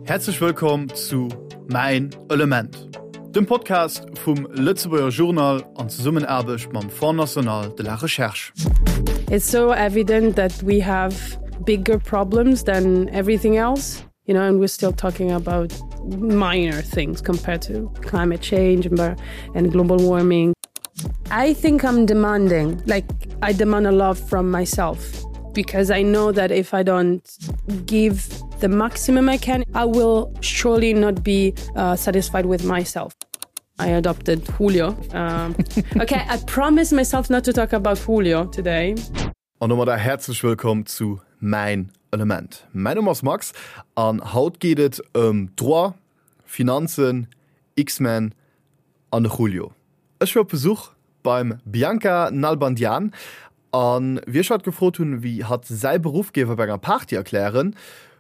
Häerzlech wëllkomm zu Mäin Element, dem Podcast vum Lëtzebuerger Journal an Zesummenaarbecht mam Fonds National de la Recherche. It's so evident that we have bigger problems than everything else, you know, and we're still talking about minor things compared to climate change and, and global warming. I think I'm demanding, like I demand a lot from myself because I know that if I don't give the maximum I can, I will surely not be uh, satisfied with myself. I adopted Julio. Um, okay, I promise myself not to talk about Julio today. An domadder häerzlech wëllkomm zu Mäin Element. Mäin Numm ass Max an haut geet et ëm Droit, Finanzen, X-Men an de Julio. Ech war op Besuch beim Bianca Nalbandian an wéi ech hatt gefrot hunn, wéi hatt säi Beruff géif op enger Party erklären,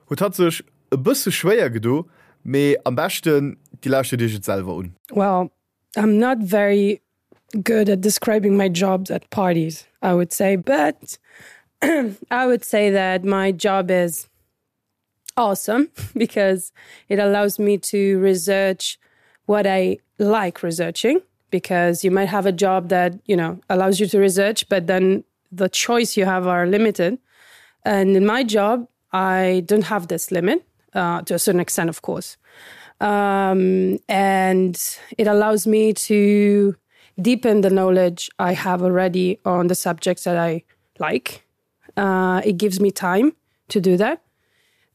huet hatt sech e bësse schwéier gedo, mee am beschten dir lauschtert iech et selwer un. Well, I'm not very good at describing my jobs at parties, I would say, but I would say that my job is awesome because it allows me to research what I like researching because you might have a job that you know allows you to research but then the choice you have are limited and in my job I don't have this limit uh, to a certain extent of course um, and it allows me to deepen the knowledge I have already on the subjects that I like uh, it gives me time to do that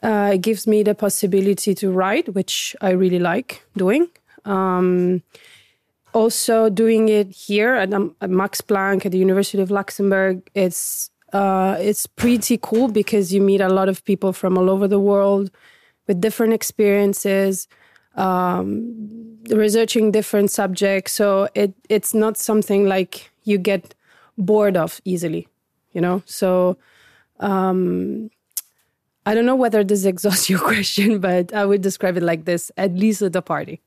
uh, it gives me the possibility to write which I really like doing um, also doing it here at, um, at Max Planck at the University of Luxembourg it's uh, it's pretty cool because you meet a lot of people from all over the world with different experiences um, researching different subjects so it it's not something like you get bored of easily you know so um, I don't know whether this exhausts your question but I would describe it like this at least at the party.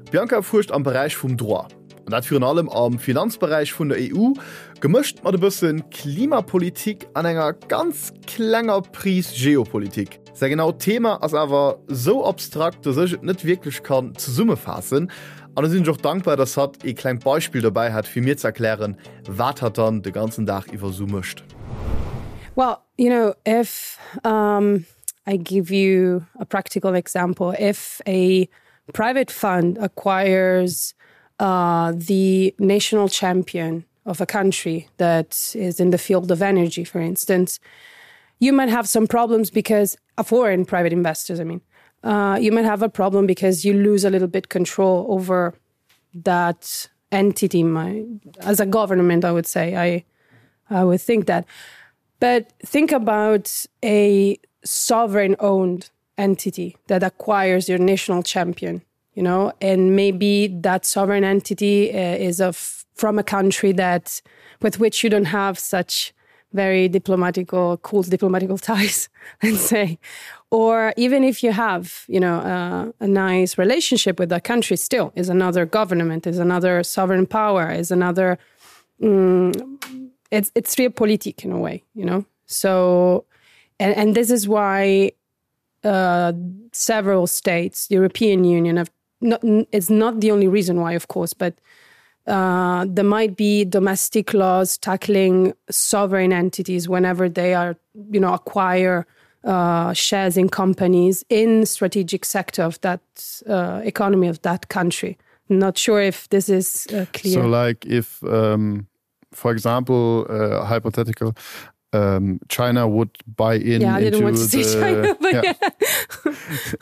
D'Bianca fuerscht am Beräich vum Droit, an dat virun allem am Finanzberäich vun der EU, gemëscht mat e bësse Klimapolitik an enger ganz klenger Pris Geopolitik. Säi genaut Thema ass awer sou abstrakt, dass ech et net wierklech kann zesummefaassen. An do sinn ech och dankbar, dass hatt ee klengt Beispill dobäi hat, fir mir ze erklären, wat hatt dann de ganzen Dag iwwer sou mécht. Well, you know, if um, I give you a practical example, if a private fund acquires uh, the national champion of a country that is in the field of energy, for instance, you might have some problems because a foreign private investors, I mean, uh, you might have a problem because you lose a little bit control over that entity my as a government, I would say I, I would think that. But think about a sovereign owned entity that acquires your national champion you know and maybe that sovereign entity uh, is of from a country that with which you don't have such very diplomatical cool diplomatical ties and say or even if you have you know uh, a nice relationship with that country still is another government is another sovereign power is another mm, it's it's real politic in a way you know so and and this is why uh, several states the European Union have not it's not the only reason why of course but uh, there might be domestic laws tackling sovereign entities whenever they are you know acquire uh, shares in companies in strategic sector of that uh, economy of that country not sure if this is uh, clear so like if um, for example uh, hypothetical um, China would buy in yeah, into the, China, yeah.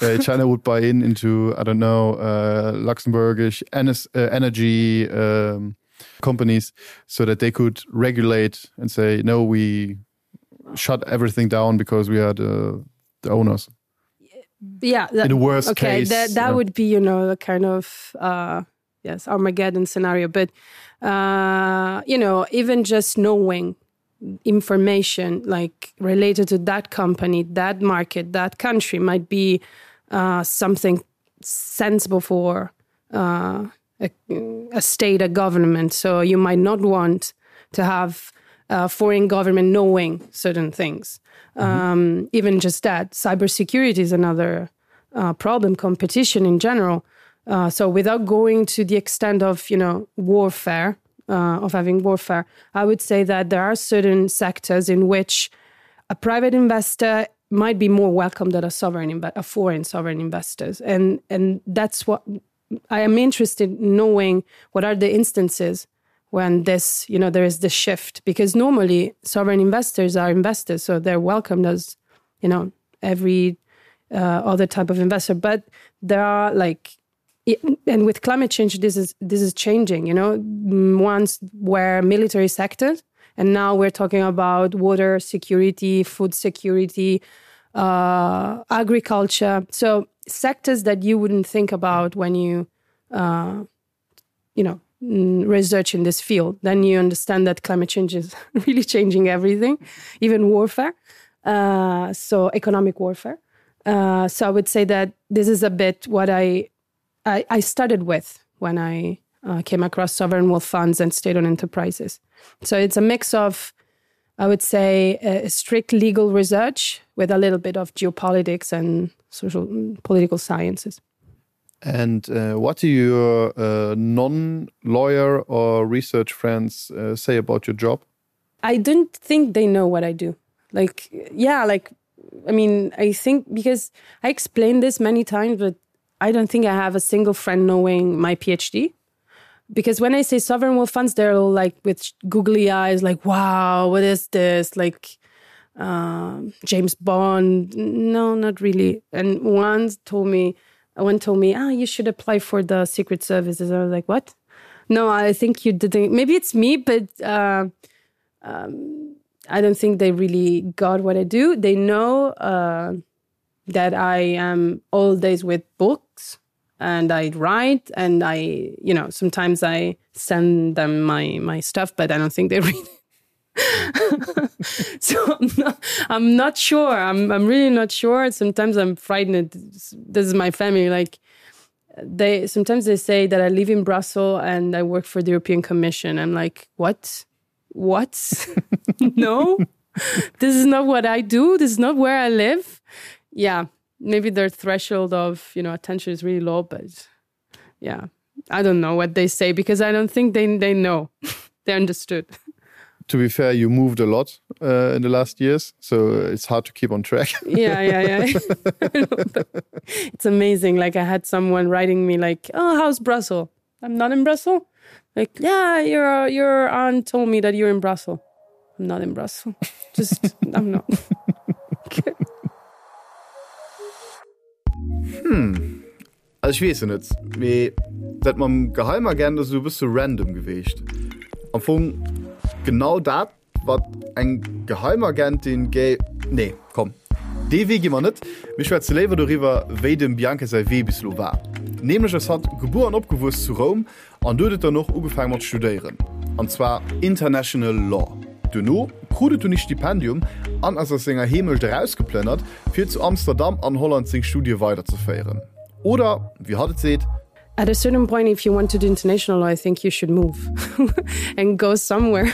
Yeah. uh, China would buy in into I don't know uh, Luxembourgish uh, energy um, companies so that they could regulate and say no we shut everything down because we are the, the owners yeah that, in the worst okay case, that, that yeah. would be you know the kind of uh, yes Armageddon scenario but uh, you know even just knowing information like related to that company that market that country might be uh, something sensible for uh, a, a state a government so you might not want to have a foreign government knowing certain things mm -hmm. um, even just that cybersecurity is another. uh, problem, competition in general. Uh, so without going to the extent of you know warfare uh, of having warfare, I would say that there are certain sectors in which a private investor might be more welcome than a sovereign a foreign sovereign investors and and that's what I am interested in knowing what are the instances when this you know there is the shift because normally sovereign investors are investors so they're welcomed as you know every uh, other type of investor but there are like and with climate change this is this is changing you know once where military sectors and now we're talking about water security food security uh agriculture so sectors that you wouldn't think about when you uh you know mm, research in this field then you understand that climate change is really changing everything even warfare uh so economic warfare uh so i would say that this is a bit what i I, I started with when I uh, came across sovereign wealth funds and state-owned enterprises. So it's a mix of, I would say, a strict legal research with a little bit of geopolitics and social mm, political sciences. And uh, what do your uh, non-lawyer or research friends uh, say about your job? I don't think they know what I do. Like yeah, like I mean, I think because I explained this many times, but I don't think I have a single friend knowing my PhD. Because when I say sovereign wealth funds, they're all like with googly eyes, like, wow, what is this? Like uh, James Bond. No, not really. And one told me, one told me, ah, you should apply for the secret services. I was like, what? No, I think you didn't. Maybe it's me, but uh, um, I don't think they really got what I do. They know uh, that I am all days with books and I write and I you know sometimes I send them my my stuff but I don't think they read it. so I'm not, I'm not sure I'm, I'm really not sure sometimes I'm frightened this is my family like they sometimes they say that I live in Brussels and I work for the European Commission I'm like what what no this is not what I do this is not where I live yeah maybe their threshold of you know attention is really low but yeah I don't know what they say because I don't think they they know they understood to be fair you moved a lot uh, in the last years so it's hard to keep on track yeah yeah yeah it's amazing like I had someone writing me like oh how's Brussels I'm not in Brussels like yeah your your aunt told me that you're in Brussels I'm not in Brussels just I'm not okay. Hm. Also ech weess jo net, mee dat mam Geheimagent ass esou e bësse random geweecht. Am Fong genau dat wat eng Geheimagentin géi. Nee, komm, dee Wee gi mer net. Mir schwätze léiwer doriwwer, wéi dem Bianca säi Wee bis elo war. Nämlech ass hatt gebuer an opgewuess zu Roum An do huet et dann och ugefaang mat studéieren, an zwar International Law. Duerno krut et dunn ee Stipendium an ass aus senger Heemecht erausgeplënnert, fir zu Amsterdam an Holland seng Studie weiderzeféieren. Oder wéi hatt et seet. At a certain point if you want to do international law, I think you should move and go somewhere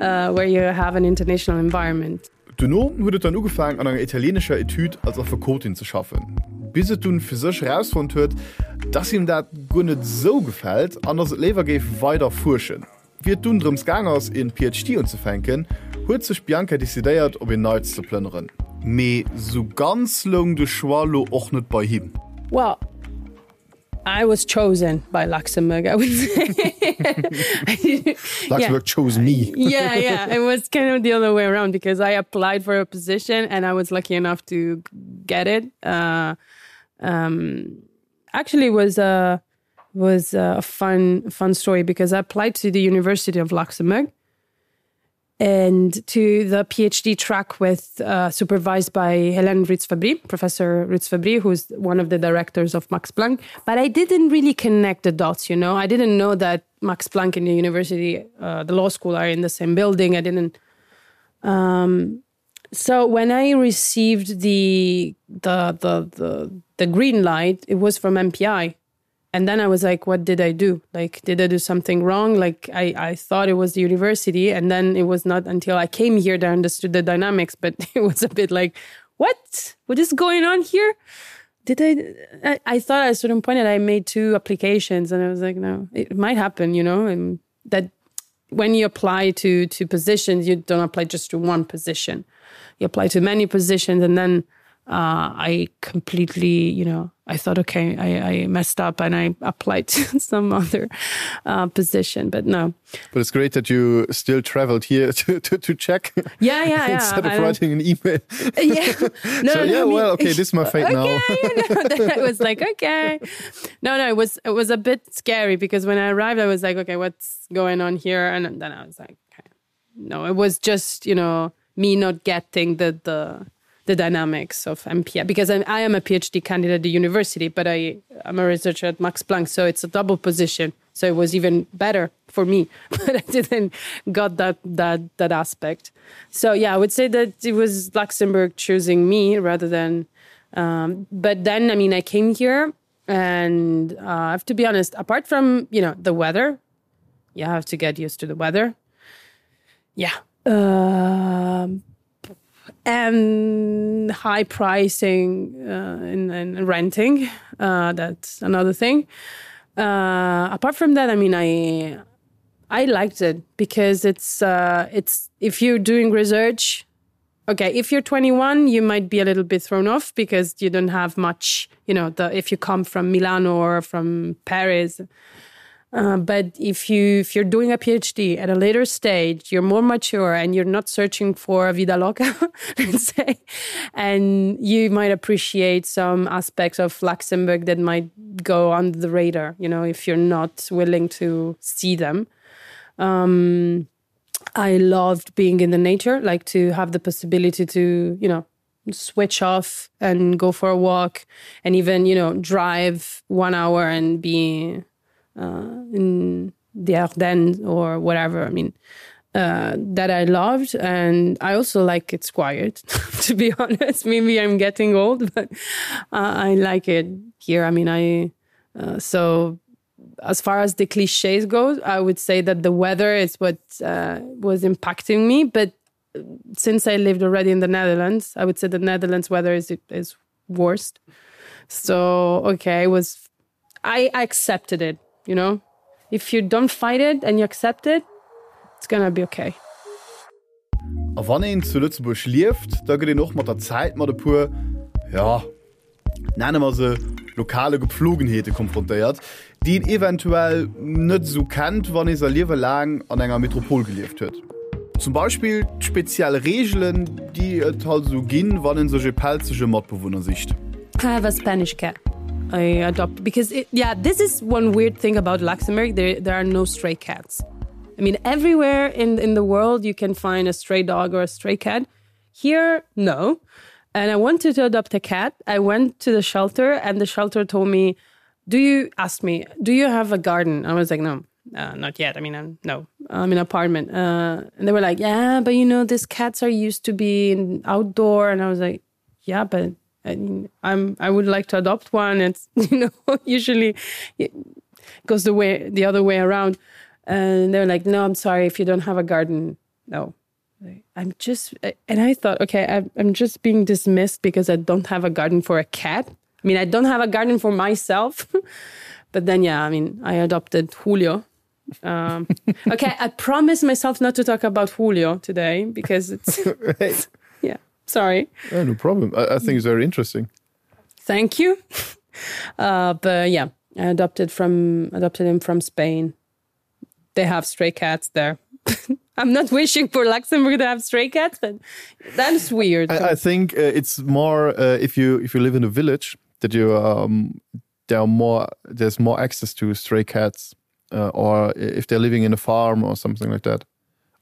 uh, where you have an international environment. Duerno huet et dann ugefaang an enger italienescher Etüd als Affekotin ze schaffen, bis et dunn fir sech erausfonnt huet, dass him dat guer net esou gefält an dass et léiwer géif weider fuerschen. Wéi et dunn drëms gaang ass een PhD unzefänken, huet sech d'Bianca decidéiert op een Neits ze plënneren. Mee sou ganz loung de Choix lo och net bei him. Well, I was chosen by Luxembourg I would say Luxembourg yeah. chose me yeah yeah it was kind of the other way around because I applied for a position and I was lucky enough to get it uh, um, actually was a was a fun fun story because I applied to the University of Luxembourg and to the PhD track with uh, supervised by Helen Ritzfabri, Professor Ritzfabri, who's one of the directors of Max Planck. But I didn't really connect the dots, you know. I didn't know that Max Planck and the university, uh, the law school are in the same building. I didn't. Um, so when I received the, the, the, the, the green light, it was from MPI and then I was like what did I do like did I do something wrong like I I thought it was the university and then it was not until I came here that I understood the dynamics but it was a bit like what what is going on here Did I, I? I thought at a certain point that I made two applications, and I was like, no, it might happen, you know, and that when you apply to to positions, you don't apply just to one position. You apply to many positions, and then uh, I completely, you know, I thought, okay, I, I messed up and I applied to some other uh, position, but no. But it's great that you still traveled here to, to, to check. Yeah, yeah, yeah. Instead of writing an email. Yeah. No, so, no, yeah, I mean, well, okay, this is my fate okay, now. You know, I was like, okay. No, no, it was it was a bit scary because when I arrived, I was like, okay, what's going on here? And then I was like, okay. No, it was just, you know, me not getting the the the dynamics of MPI because I'm, I am a PhD candidate at the university, but I am a researcher at Max Planck, so it's a double position. So it was even better for me, but I didn't got that that that aspect. So yeah, I would say that it was Luxembourg choosing me rather than. Um, but then I mean, I came here, and uh, I have to be honest. Apart from you know the weather, you have to get used to the weather. Yeah. Um, and high pricing uh, in, in renting uh, that's another thing uh, apart from that I mean I I liked it because it's uh, it's if you're doing research okay if you're 21 you might be a little bit thrown off because you don't have much you know the if you come from Milano or from Paris Uh, but if you if you're doing a PhD at a later stage, you're more mature and you're not searching for a vida loca, let's say, and you might appreciate some aspects of Luxembourg that might go under the radar, you know, if you're not willing to see them. Um, I loved being in the nature, like to have the possibility to, you know, switch off and go for a walk and even, you know, drive one hour and be uh, in the Ardennes or whatever. I mean, uh, that I loved and I also like it's quiet to be honest. Maybe I'm getting old, but uh, I like it here. I mean, I uh, so as far as the cliches go, I would say that the weather is what uh, was impacting me. But uh, since I lived already in the Netherlands, I would say the Netherlands weather is is worst. So okay, it was I, I accepted it, you know. If you don't fight it and you accept it, it's gonna be okay. A wann een zu Lëtzebuerg lieft, da gëtt een och mat der Zäit mat e puer, jo, nenne mer se lokale Gepflogenheete konfrontéiert, déi een eventuell net esou kennt, wann ee säi Liewe laang an enger Metropol gelieft huet. Zum Beispill d'speziell Reegelen, déi et halt esou ginn, wann ee sech e pelzege Matbewunner sicht. I have a Spanish cat. I adopt because it, yeah, this is one weird thing about Luxembourg. There, there are no stray cats. I mean, everywhere in, in the world you can find a stray dog or a stray cat. Here, no. And I wanted to adopt a cat. I went to the shelter and the shelter told me, do you ask me, do you have a garden? I was like, no, uh, not yet. I mean, I'm, no, I'm in an apartment. Uh, and they were like, yeah, but you know, these cats are used to be outdoor. And I was like, yeah, but I mean, I'm, I would like to adopt one. It's, you know, usually it goes the way the other way around. And they're like, no, I'm sorry if you don't have a garden. No, I'm just and I thought, okay, I'm, I'm just being dismissed because I don't have a garden for a cat. I mean, I don't have a garden for myself. but then, yeah, I mean, I adopted Julio. Um, okay, I promised myself not to talk about Julio today because it's right. yeah, sorry. Yeah, no problem. I, I think it's very interesting. Thank you. Uh, but yeah, I adopted from adopted him from Spain. They have stray cats there. I'm not wishing for Luxembourg to have stray cats, but that's weird. I, I think uh, it's more uh, if you if you live in a village that you um, there are more there's more access to stray cats uh, or if they're living in a farm or something like that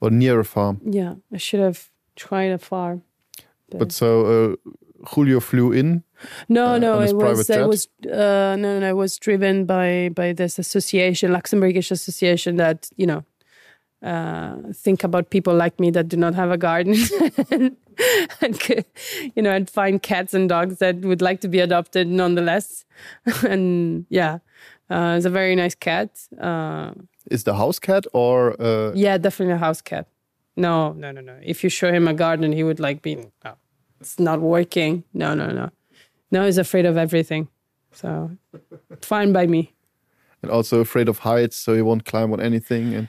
or near a farm. Yeah, I should have tried a farm. But, but so uh, Julio flew in. No, uh, no, it was it was uh, no, no, it was driven by by this association, Luxembourgish association that you know uh, think about people like me that do not have a garden and, and you know and find cats and dogs that would like to be adopted nonetheless and yeah uh, it's a very nice cat uh, is the house cat or uh... yeah definitely a house cat no no no no if you show him a garden he would like be oh, it's not working no no no. Now he's afraid of everything. So fine by me. And also afraid of heights, so he won't climb on anything and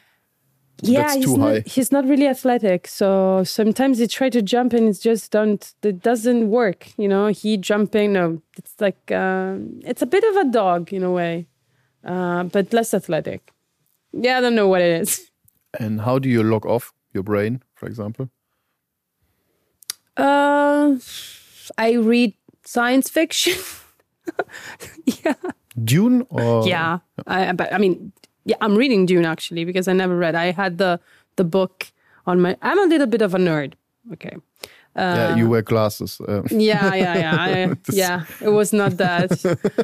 yeah, that's too high. Not, he's not really athletic, so sometimes he try to jump and it's just don't it doesn't work, you know, he jumping no, it's like uh, it's a bit of a dog in a way, uh, but less athletic. Yeah, I don't know what it is. And how do you lock off your brain, for example? Uh, I read science fiction. yeah. Dune or yeah, I, but I mean, yeah, I'm reading Dune actually because I never read. I had the the book on my I'm a little bit of a nerd. Okay. Uh, yeah, you wear glasses. Uh. Yeah, yeah, yeah. I, yeah, it was not that.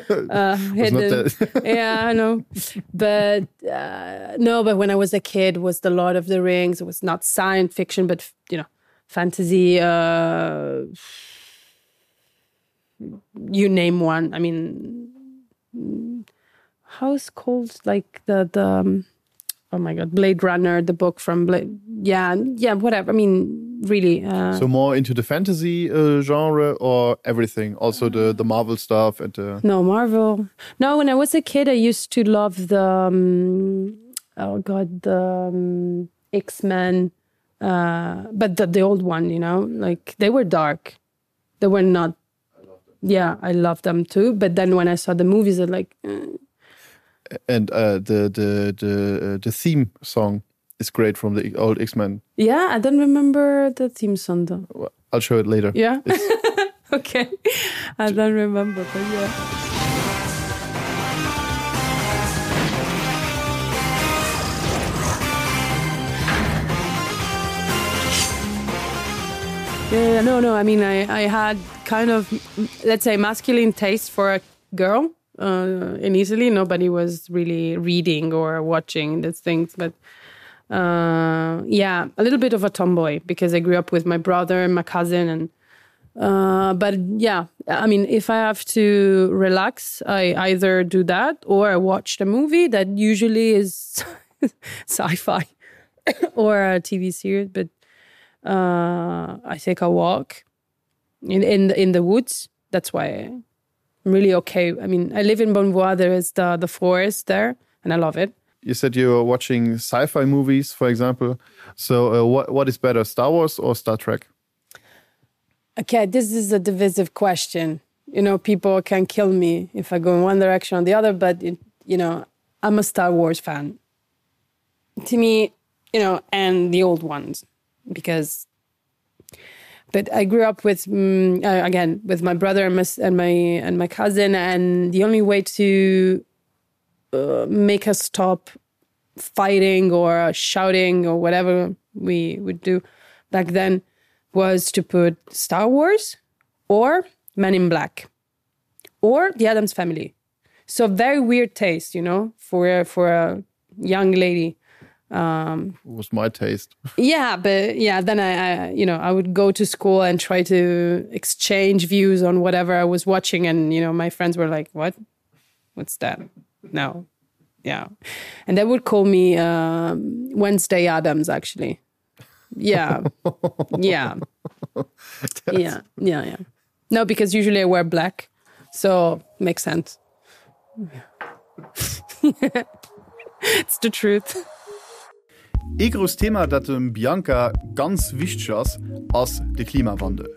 Uh, was not that. yeah, I know. But uh, no, but when I was a kid was the Lord of the Rings. It was not science fiction, but you know, fantasy uh, you name one. I mean, how's called like the the um, oh my god blade runner the book from blade yeah yeah whatever i mean really uh, so more into the fantasy uh, genre or everything also the the marvel stuff and the no marvel no when i was a kid i used to love the um, oh god the um, x-men uh but the, the old one you know like they were dark they were not yeah i love them too but then when i saw the movies i like eh. and uh the the the uh, the theme song is great from the old x-men yeah i don't remember the theme song though i'll show it later yeah okay i don't remember but yeah Yeah, no, no. I mean, I, I had kind of, let's say, masculine taste for a girl uh, in Italy. Nobody was really reading or watching these things. But uh, yeah, a little bit of a tomboy because I grew up with my brother and my cousin. And uh, but yeah, I mean, if I have to relax, I either do that or I watch the movie that usually is sci-fi or a TV series. But uh, I take a walk in in in the woods. That's why I'm really okay. I mean, I live in Bonvois, there is the the forest there and I love it. You said you were watching sci-fi movies, for example. So uh, what what is better, Star Wars or Star Trek? Okay, this is a divisive question. You know, people can kill me if I go in one direction or the other, but it, you know, I'm a Star Wars fan. To me, you know, and the old ones because but I grew up with mm, uh, again with my brother and my, and my and my cousin and the only way to uh, make us stop fighting or shouting or whatever we would do back then was to put Star Wars or Men in Black or the Adams family. So very weird taste, you know, for for a young lady um was my taste yeah but yeah then I, I you know i would go to school and try to exchange views on whatever i was watching and you know my friends were like what what's that no yeah and they would call me um wednesday adams actually yeah yeah yeah yeah yeah no because usually i wear black so makes sense yeah. it's the truth. Ee grousst Thema, dat dem Bianca ganz wichteg ass, ass de Klimawandel.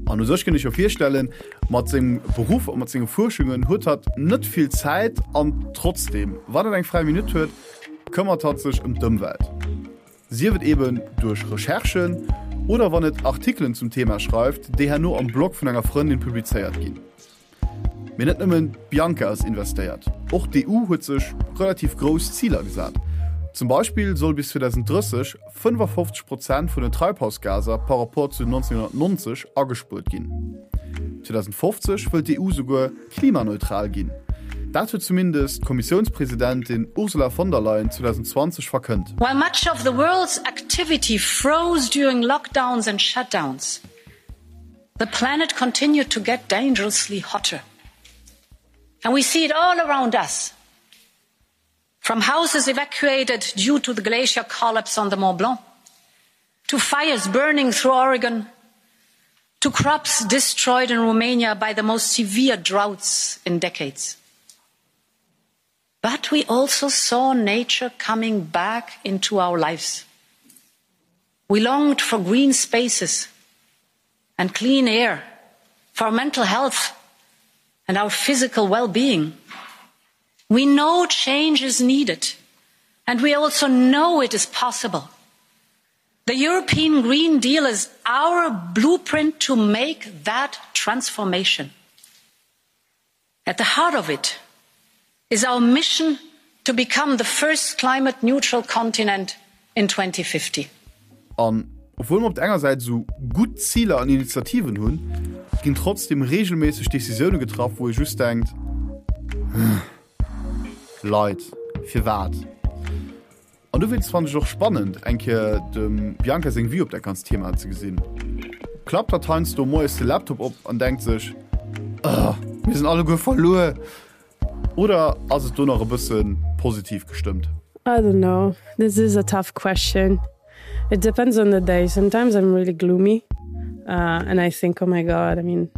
An u sech kënnt ech jo virstellen, mat sengem Beruff a mat senge Fuerschungen huet hatt net vill Zäit an trotzdeem, wann et eng fräi Minutt huet, këmmert hatt sech ëm d'Ëmwelt. Sief et eben duerch Recherchen oder wann et Artikelen zum Thema schreift, déi herno am Blog vun enger Frëndin publizéiert ginn. Mee net nëmmen d'Bianca ass investéiert, och d'EU huet sech relativ grouss Ziler gesat. Zum Beispill soll bis 2030 55 Prozent vun den Treibhausgaser par rapport zu 1990 agespuert ginn. 2050 wëllt d'EU souguer klimaneutral ginn. Dat huet zumindest d'Kommissiounspresidentin Ursula von der Leyen 2020 verkënnt. While much of the world's activity froze during lockdowns and shutdowns, The planet continued to get dangerously hotter. And we see it all around us. From houses evacuated due to the glacier collapse on the Mont Blanc, to fires burning through Oregon, To crops destroyed in Romania by the most severe droughts in decades. But we also saw nature coming back into our lives. We longed for green spaces and clean air, for our mental health and our physical well-being. We know change is needed, and we also know it is possible. The European Green Deal is our blueprint to make that transformation. At the heart of it is our mission to become the first climate neutral continent in 2050. An obwuel mer op der enger Säit esou gutt Ziler an Initiativen hunn, ginn trotzdeem reegelméisseg Decisioune getraff, wou ee just denkt, Leit, firwat? An dowéinst fannen ech och spannend, eng Kéier dem Bianca seng Vue op dat ganzt Thema ze gesinn. Klappt hatt heiansdo moies de Laptop op an denkt sech, Ugh, mir sinn alleguer verluer? Oder ass et do nach e bësse positiv gestëmmt? I don't know. This is a tough question. It depends on the day. Sometimes I'm really gloomy uh, and I think, oh my God, I mean,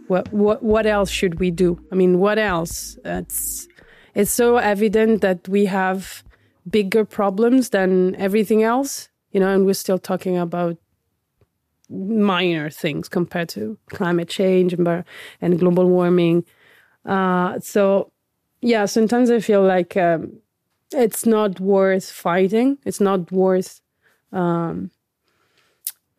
what, what, what else should we do? I mean, what else? It's, it's so evident that we have bigger problems than everything else, you know, and we're still talking about minor things compared to climate change and, and global warming. Uh, so yeah, sometimes I feel like um, it's not worth fighting. It's not worth um,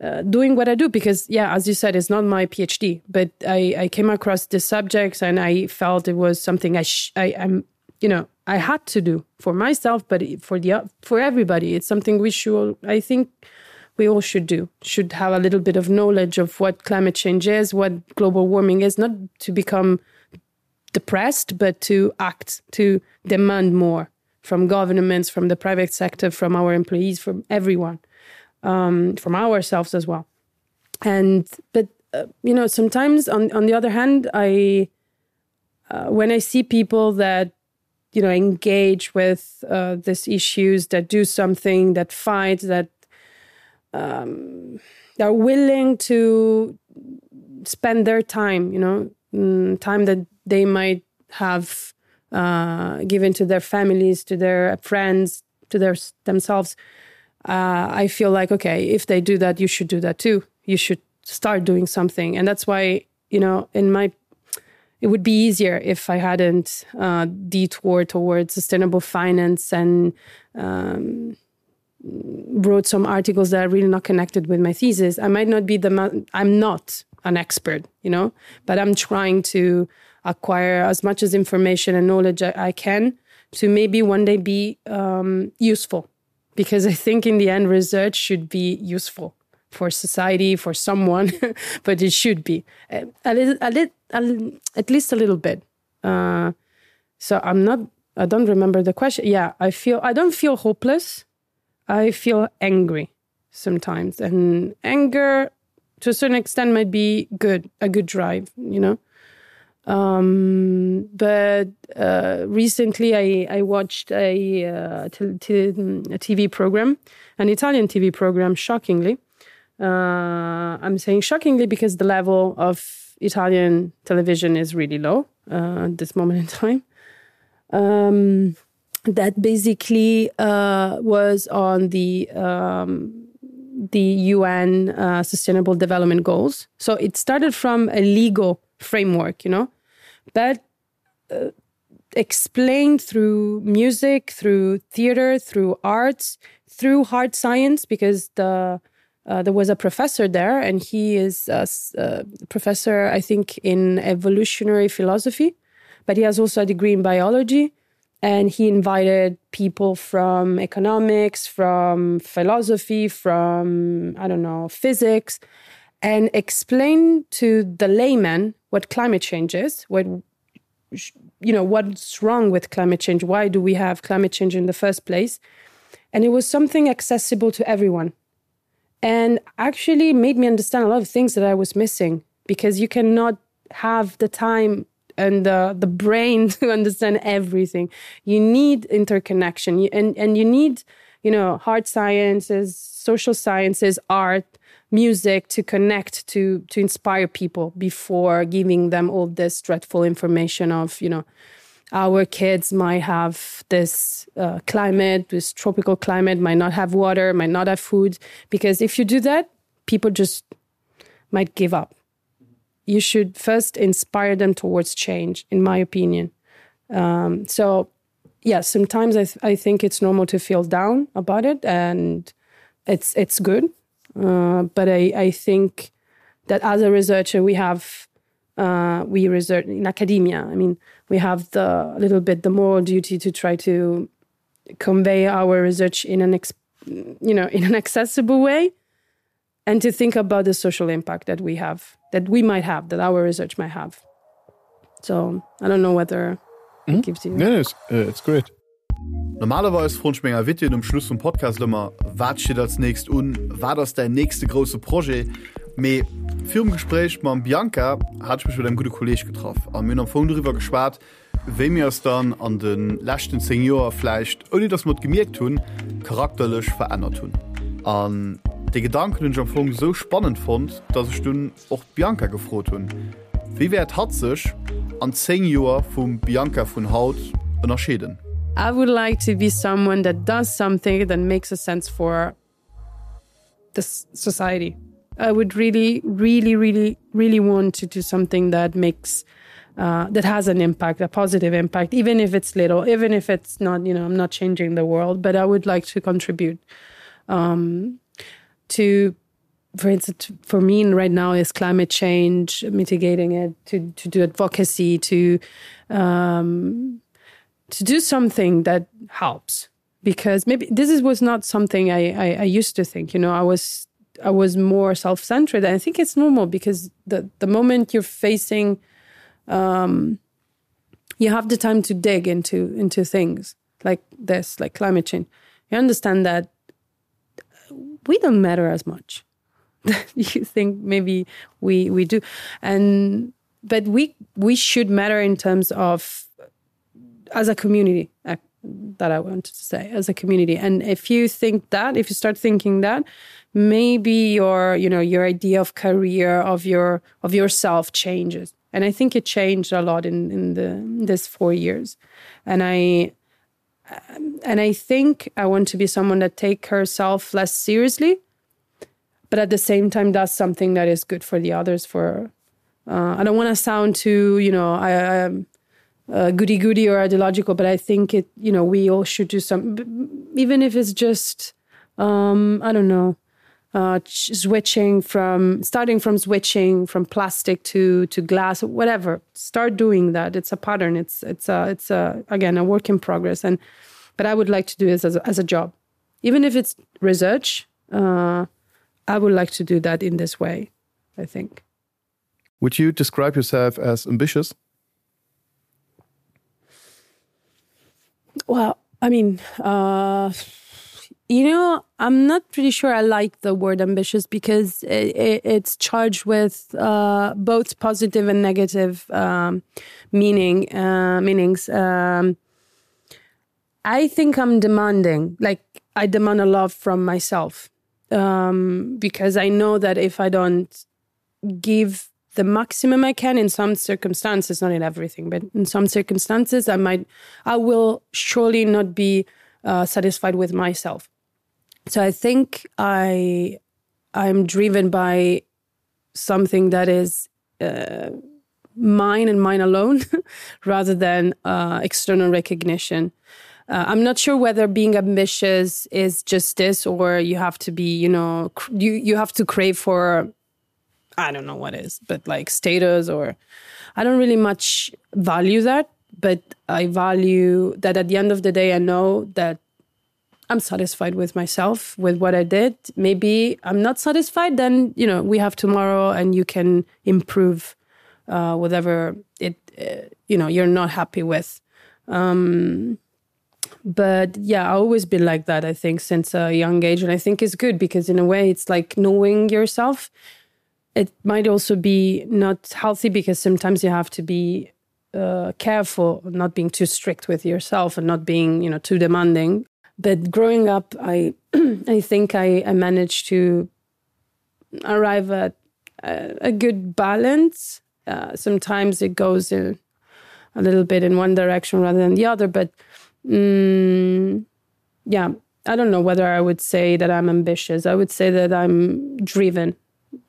uh, doing what I do because yeah, as you said, it's not my PhD, but I, I came across the subjects and I felt it was something I sh I am you know I had to do for myself, but for the for everybody. It's something we should I think we all should do should have a little bit of knowledge of what climate change is, what global warming is, not to become depressed, but to act to demand more from governments, from the private sector, from our employees, from everyone, um, from ourselves as well. And but uh, you know, sometimes on, on the other hand, I uh, when I see people that you know engage with uh, these issues, that do something, that fight, that um, are willing to spend their time, you know, mm, time that they might have uh, given to their families, to their friends, to their themselves, uh, I feel like, okay, if they do that, you should do that too. You should start doing something. And that's why, you know, in my it would be easier if I hadn't uh, detoured towards sustainable finance and um, wrote some articles that are really not connected with my thesis. I might not be the I'm not an expert, you know, but I'm trying to acquire as much as information and knowledge I, I can to maybe one day be um, useful because I think in the end research should be useful for society for someone but it should be a, a little a little a, at least a little bit uh, so I'm not I don't remember the question yeah I feel I don't feel hopeless I feel angry sometimes and anger to a certain extent might be good a good drive you know um but uh recently I I watched a uh, a TV program an Italian TV program shockingly uh I'm saying shockingly because the level of Italian television is really low uh, at this moment in time um that basically uh was on the um the UN uh, sustainable development goals so it started from a legal framework you know but uh, explained through music through theater through arts through hard science because the uh, there was a professor there and he is a, a professor I think in evolutionary philosophy but he has also a degree in biology and he invited people from economics from philosophy from I don't know physics and explain to the layman what climate change is what you know what's wrong with climate change why do we have climate change in the first place and it was something accessible to everyone and actually made me understand a lot of things that I was missing because you cannot have the time and the, the brain to understand everything you need interconnection you, and and you need you know hard sciences social sciences art. music to connect to to inspire people before giving them all this dreadful information of you know our kids might have this uh, climate this tropical climate might not have water might not have food because if you do that people just might give up you should first inspire them towards change in my opinion um, so yeah sometimes I, th I think it's normal to feel down about it and it's it's good uh, but I, I think that as a researcher we have uh, we research in academia I mean we have the little bit the moral duty to try to convey our research in an you know in an accessible way and to think about the social impact that we have that we might have that our research might have so I don't know whether mm -hmm. gives you yeah, it's, uh, it's great Normalerweis froen ech meng Invitéen um Schluss vum Podcast ëmmer, Wat steet als nächst un? Wat ass däin nächste grousse Projet? Mee virum Gespréich mam Bianca hat ech mech mat engem gudde Kolleeg getraff a mir hunn am Fong doriwwer geschwat, wéi mir eis dann an de leschten 10 Joer vläicht, ouni datt mer et gemierkt hunn, charakterlech verännert hunn. An dee Gedanken hunn ech am Fong esou spannend fonnt, datt ech dunn och d'Bianca gefrot hunn, Wéi wäert hatt sech an 10 Joer vum Bianca vun haut ënnerscheeden? I would like to be someone that does something that makes a sense for this society. I would really, really, really, really want to do something that makes uh, that has an impact, a positive impact, even if it's little, even if it's not, you know, I'm not changing the world, but I would like to contribute um, to for instance for me right now is climate change mitigating it to to do advocacy to um to do something that helps because maybe this is was not something I, I I used to think you know I was I was more self-centered and I think it's normal because the the moment you're facing um you have the time to dig into into things like this like climate change you understand that we don't matter as much you think maybe we we do and but we we should matter in terms of as a community uh, that I wanted to say as a community and if you think that if you start thinking that maybe your you know your idea of career of your of yourself changes and I think it changed a lot in in the in this four years and I um, and I think I want to be someone that take herself less seriously but at the same time does something that is good for the others for uh, I don't want to sound too you know I, I um, uh, goody goody or ideological but I think it you know we all should do some even if it's just um, I don't know uh, switching from starting from switching from plastic to to glass whatever start doing that it's a pattern it's it's a it's a again a work in progress and but I would like to do this as a, as a job even if it's research uh, I would like to do that in this way I think would you describe yourself as ambitious well I mean uh you know I'm not pretty sure I like the word ambitious because it, it, it's charged with uh both positive and negative um meaning uh meanings um I think I'm demanding like I demand a lot from myself um because I know that if I don't give the maximum I can in some circumstances not in everything but in some circumstances I might I will surely not be uh, satisfied with myself so I think I I'm driven by something that is uh, mine and mine alone rather than uh, external recognition uh, I'm not sure whether being ambitious is just this or you have to be you know you you have to crave for I don't know what is but like status or I don't really much value that but I value that at the end of the day I know that I'm satisfied with myself with what I did maybe I'm not satisfied then you know we have tomorrow and you can improve uh, whatever it uh, you know you're not happy with um but yeah I always been like that I think since a young age and I think it's good because in a way it's like knowing yourself it might also be not healthy because sometimes you have to be uh, careful not being too strict with yourself and not being you know too demanding but growing up I I think I, I managed to. arrive at a, a good balance. Uh, sometimes it goes in a little bit in one direction rather than the other, but mm, yeah, I don't know whether I would say that I'm ambitious. I would say that I'm driven.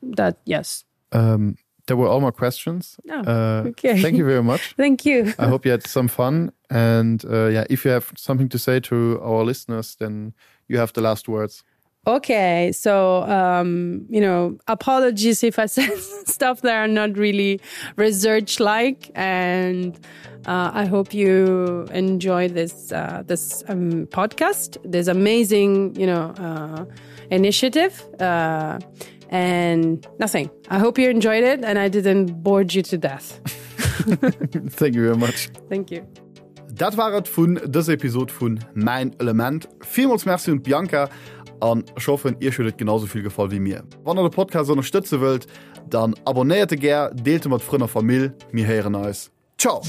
That yes. Um, there were all my questions. Oh, uh, okay. Thank you very much. Thank you. I hope you had some fun. And uh, yeah, if you have something to say to our listeners, then you have the last words. Okay, so um, you know, apologies if I said stuff that are not really research like and uh, I hope you enjoy this uh, this um, podcast, this amazing you know uh, initiative uh, and nothing. I hope you enjoyed it and I didn't bore you to death. Thank you very much. Thank you. Dat war et vun dëser Episod vun Mäin Element. Villmools Merci un d'Bianca an ech hoffen iech huet et genau sou vill gefall wéi mir. Wann der de Podcast ënnerstëtze wëllt, dann abonnéiert e gär, deelt e mat Frënn a Famill. Mir héieren eis. Ciao!